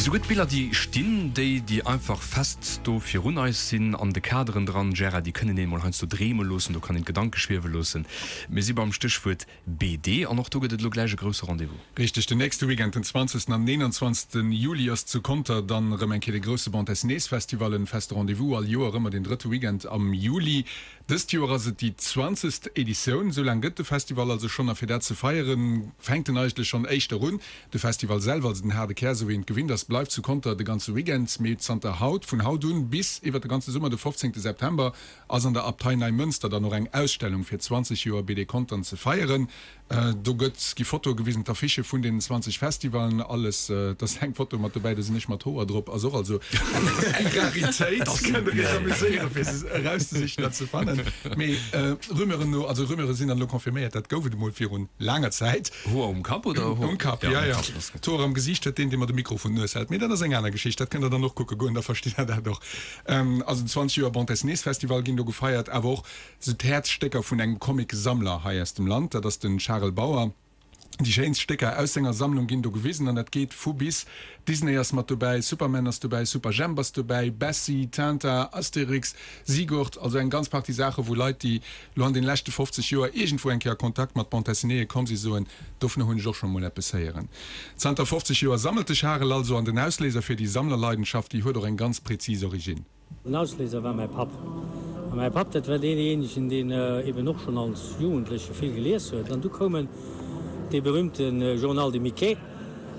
Mee souguer d'Biller, déi stinn, déi, déi einfach fest do virun eis sinn, an de Kaderen dran, Gérard, déi kënnen een emol heiansdo dreeme loossen, do kann een d'Gedanke schwiewe loossen. Mir si beim Stéchwuert BD an och do gëtt et elo gläich e grousse Rendez-vous. Richteg, den nächste Weekend, den 20. an 21. Juli ass zu Conter dann erëm eng Kéier de grousse Bande Dessinées Festival, en feste Rendez-vous, all Joer ëmmer den drëtte Weekend am Juli. Dëst Joer ass et déi zwanzegst Editioun, esou laang gëtt de Festival also schonn a fir dat ze feieren, fänkt en eigentlech schonn éischter un. De Festival selwer, also den haarde Kär, esou wéi een et gewinnt ass, bleift zu Conter de ganze Weekend, mee zanter haut, vun haut un bis iwwer de ganze Summer, de 15 September, ass an der Abtei Neimënster dann och eng Ausstellung fir 20 Joer BD Contern ze feieren. Do gëtt, gi Fotoe gewisen, d'Affichë vun deenen 20 Festivalen, alles. Et ass eng Foto mat dobäi, do sinn ech mat Hoer drop, ass och also eng Raritéit. Kënnt der iech amuséieren, fir se erauszesichen an ze fannen. Mee Rumeuren no, also Rumeure sinn dann elo confirméiert, dat gouf et emol virun laanger Zäit. Hoer um Kapp oder Hoer? Um Kapp, jo, jo. D'Hoer am Gesiicht huet deen, dee mer de Mikro vun d'Nues hält. Mee dat ass eng aner Geschicht, dat kënnt der dann och kucke goen, da verstitt der dat och. Also 20 Joer Bande Dessinées Festival ginn do gefeiert, awer och Sou d'Häerzstécker vun engem Comic-Sammler hei aus dem Land, dat ass de Charel Bauer. Déi schéinst Stécker aus senger Sammlung ginn do gewisen an dat geet vu bis. Disney ass mat dobäi, Superman ass dobäi, Superjhemp ass dobäi, Bessie, Tintin, Asterix, Sigurd, also eng ganz Partie Saache wou Leit, déi lo an den leschte 50 Joer iergendwou eng Kéier a Kontakt mat Bande Dessinéeë komm si soen, dovunner hunn ech och scho mol eppes héieren. Zanter 50 Joer sammelt de Charel also an den Ausléiser fir déi Sammlerleidenschaft, déi huet och eng ganz präzis Originn. Den Ausléiser war mäi Papp. A mäi Papp, dat war deejéinegen, deen eben och schonn als Jugendleche vill gelies huet. An du koumen dee berühmte Journal de Mickey,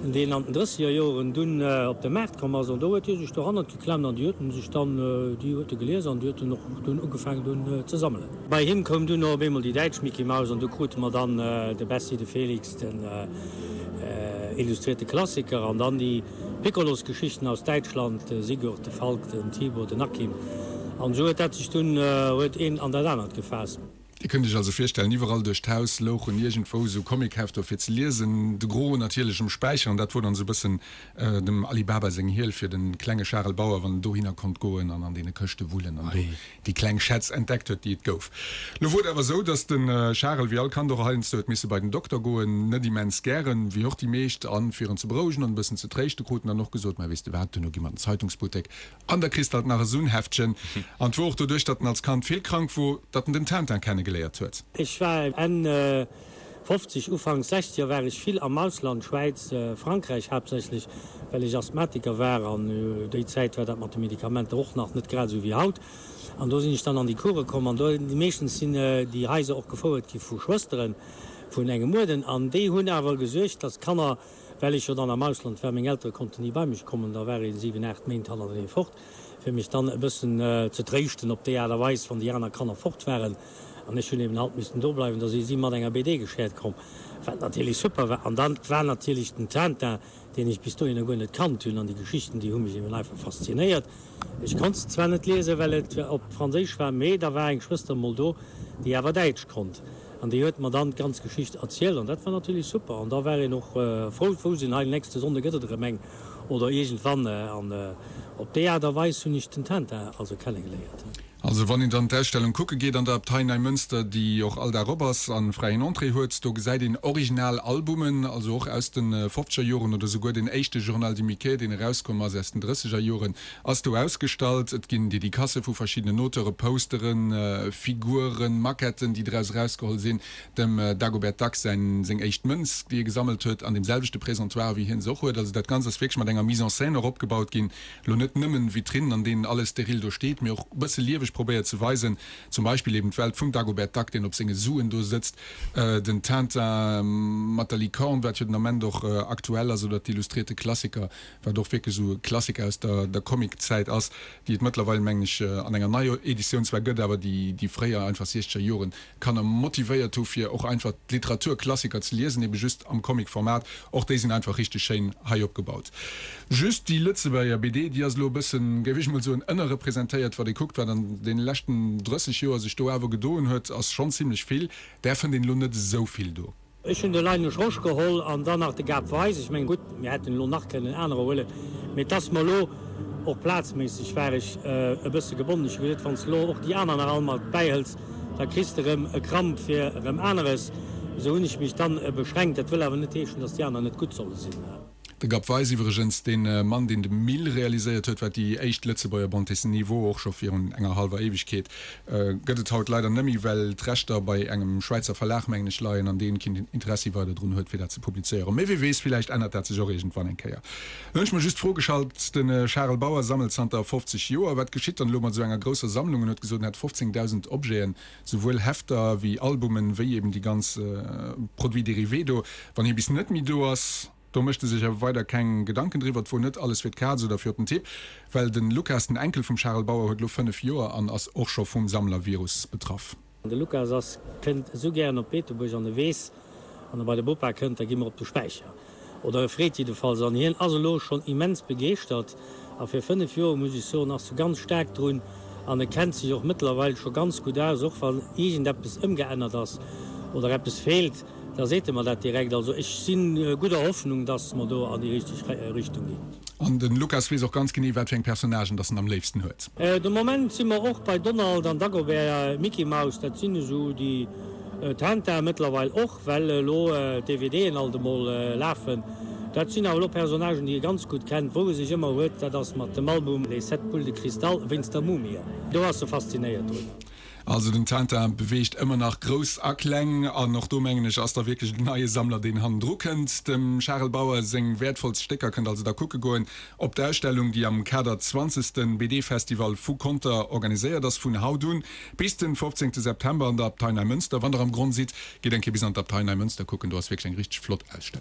deen an den drësseger Joren dunn op de Maart komm ass. An do huet hie sech dohannert geklemmt an déi huet en sech dann, déi huet e gelies an déi huet en och dunn ugefaangen dunn ze sammelen. Bei him koum dunn och op eemol déi däitsch Mickey Mouse an du krute mer dann de Bessie, de Felix, den illustrierte Klassiker an dann déi Piccolosgeschichten aus Däitschland, de Sigurd, de Falk, den Tibor, den Akim. An esou huet dat sech dunn, huet een an dat anert gefaasst. Dir kënnt iech also virstellen, iwwerall duerch d'Haus louchen iergendwou esou Comichefter fir ze liesen, de Gros natierlech um Späicher, an dat wor dann esou e bëssen dem Ali Baba seng Hiel fir de klenge Charel Bauer, wann en dohinner konnt goen an an deene Këschte wullen an do déi kleng Schätz entdeckt huet, déi et gouf. Lo wor et awer esou, datt de Charel, wéi all Kand och heiansdo, huet misse bei den Dokter goen, net immens gären, wéi och déi meescht, an fir en ze berouegen an e bëssen ze tréischte krut en dann och gesot, Mä weess de wat, duerno gi mer an den Zeitungsbuttek an da kriss de alt nach esou en Heftchen. An et wor och doduerch, datt en als Kand vill krank wor, datt en den Tintin kennegeléiert huet. Ech war Enn 50, Ufank 60er war ech vill am Ausland, Schwäiz, Frankräich haaptsächlech, well ech Asthmatiker war an déi Zäit war dat mat de Medikamenter och nach net grad esou wéi haut. An do sinn ech dann an déi Course komm an do, meeschtens sinn déi Haiser och gefouert gi vu Schwësteren vun engem Uerden an déi hunn awer gesuergt, dass d'Kanner, well ech jo dann am Ausland war, meng Eltere konnten ni bei mech kommen, da war ee 7, 8 Méint hannertenee fort, fir mech dann e bëssen ze tréischten op déi Aart a Weis, wann déi aner Kanner fort waren. An ech hunn eben halt missten do bleiwen, da si si mat enger BD geschäert komm, wat natierlech super war. An dann war natierlech den Tintin, deen ech bis dohinner guer net kannt hunn, an déi Geschichten, déi hu mech eben einfach faszinéiert. Ech konnt se zwar net liesen, well et op Franséisch war, mee da war eng Schwëster emol do, déi awer Däitsch konnt, an déi huet mer dann d'ganz Geschicht erzielt, an dat war natierlech super. An da war een och frou, wou sinn, hei nächste Sonnde gëtt et erëm eng, oder iergendwann. An op déi Aart a Weis hunn ech den Tintin also kennegeléiert. Also wann een dann d'Ausstellung kucke geet an der Abtei Neimënster, déi och all Dag op ass a fräien Entrée huet, do gesäit een original Albumen, also och aus de fofzeger Joren oder souguer den éischte Journal du Mickey, deen erauskomm ass aus den drësseger Joren, ass do ausgestallt. Et ginn Dedicacë vu verschiddenen Auteure, Posteren, Figuren, Maquetten, déi draus erausgeholl sinn, dem Dagobert Duck säin seng éischt Mënz, déi e gesammelt huet, an deem selwechte Présentoir, wéi hien se och huet. Also dat Ganzt ass wierklech mat enger Mise en scène och opgebaut ginn. Lo net nëmmen Vitrinnen, an deenen alles steril do steet, mee och e bësse lieweg probéiert ze weisen. Zum Beispill eben d'Welt vum Dagobert Duck, deen op senge Suen do sëtzt, den Tintin mat der Licorne, wat jo den Ament och aktuell ass, oder d'Illustrierte Klassiker, wat och wierklech esou e Klassiker aus der der Comiczäit ass, déi et mëttlerweil, mengen ech, an enger neier Editioun zwar gëtt, awer déi déi fréier einfach siechzeger Joren Kanner motivéiert hu fir och einfach d'Literaturklassiker ze liesen, ebe just am Comic-Format. Och déi sinn einfach richteg schéin hei opgebaut. Just déi Lëtzebuerger BD, déi ass elo e bëssen, géif ech mol soen, ënnerrepresentéiert. Wat ee kuckt, wat an deene leschten 30 Joer sech do awer gedoen huet, ass schonn zimlech vill. Där fënnt een elo net esou vill do. Ech hunn de Linus Rosch geholl an dann nach de Gab Weis. Ech mengen, gutt, mir hätten elo nach kënnen anerer huelen, mee et ass mer elo och plazméisseg war ech e bësse gebonnen. Ech hu gesot, wann s de elo och déi aner nach all mat bäihëls, da kriss de erëm e Kramp fir erëm aneres. Esou hunn ech mech dann beschränkt. Dat wëll awer net heeschen, datt déi aner net gutt solle sinn. De Gab Weis iwwregens, dee Mann, deen de Mille realiséiert huet, wat déi éischt Lëtzebuerger Bande dessinée wor, och scho virun enger hallwer Éiwegkeet, gëtt et haut leider nëmmi, well d'Rechter bei engem Schwäizer Verlag, mengen ech, leien an deen keen Interessi weider drun huet, fir dat ze publizéieren. Mee wie weess, villäicht ännert dat sech och iergendwann eng Kéier. Lo hunn ech mer just d'Fro geschalt, De Charel Bauer sammelt zanter 50 Joer. Wat geschitt dann elo mat esou enger grousser Sammlung? En huet gesot, en hätt 15.000 Objeten, souwuel Hefter wéi Albumen, wéi eben déi ganz Produits dérivés do. Wann hie bis net méi do ass, do mécht e sech awer weider keng Gedanken driwwer. Et wor net alles fir d'Kaz oder fir op den Tipp, well de Lukas, den Enkel vum Charel Bauer, huet elo 5 Joer an ass och scho vum Sammlervirus betraff. De Lukas ass kënnt esou gären op Beetebuerg an e weess, wann e bei de Bopa kënnt, da gi mer op de Späicher. Oder e freet jiddefalls an hien ass elo schonn immens begeeschtert a fir 5 Joer, muss ech soen, ass e ganz staark drun an e kennt sech och mëttlerweil scho ganz gutt aus. Och wann iergendeppes ëmgeännert ass oder eppes feelt, da seet e mer dat direkt. Also ech si gudder Hoffnung, dass mer do an déi richteg Richtung ginn. An de Lukas weess och ganz genee, wat fir eng Personnagen dass en am léifsten huet. De Moment si mer och bei Donald an Dagobert, Mickey Mouse, dat sinn esou déi Tintin mëttlerweil och. Well elo d'DVDen alt emol lafen. Dat sinn awer elo Personnagen, déi e ganz gutt kennt. Wou e sech ëmmer huet, dat ass mat dem Album Les sept boules de cristal wéinst der Mumie. Do ass e faszinéiert drun. Also den Tintin beweegt ëmmer nach Grouss a Kleng an och do mengen ech ass da wierklech en neie Sammler deen hannendru kënnt. Dem Charel Bauer seng wäertvollst Stécker kënnt also da kucke goen op d'Ausstellung déi am Kader zwanzegste BD-Festival vu Conter organiséiert ass vun haut un Bis den 15 September an der Abtei Neimënster. Wann der am Gronn sidd, gitt eng Kéier bis an d'Abtei Neimënster kucken, do ass wierklech eng richteg flott Ausstellung.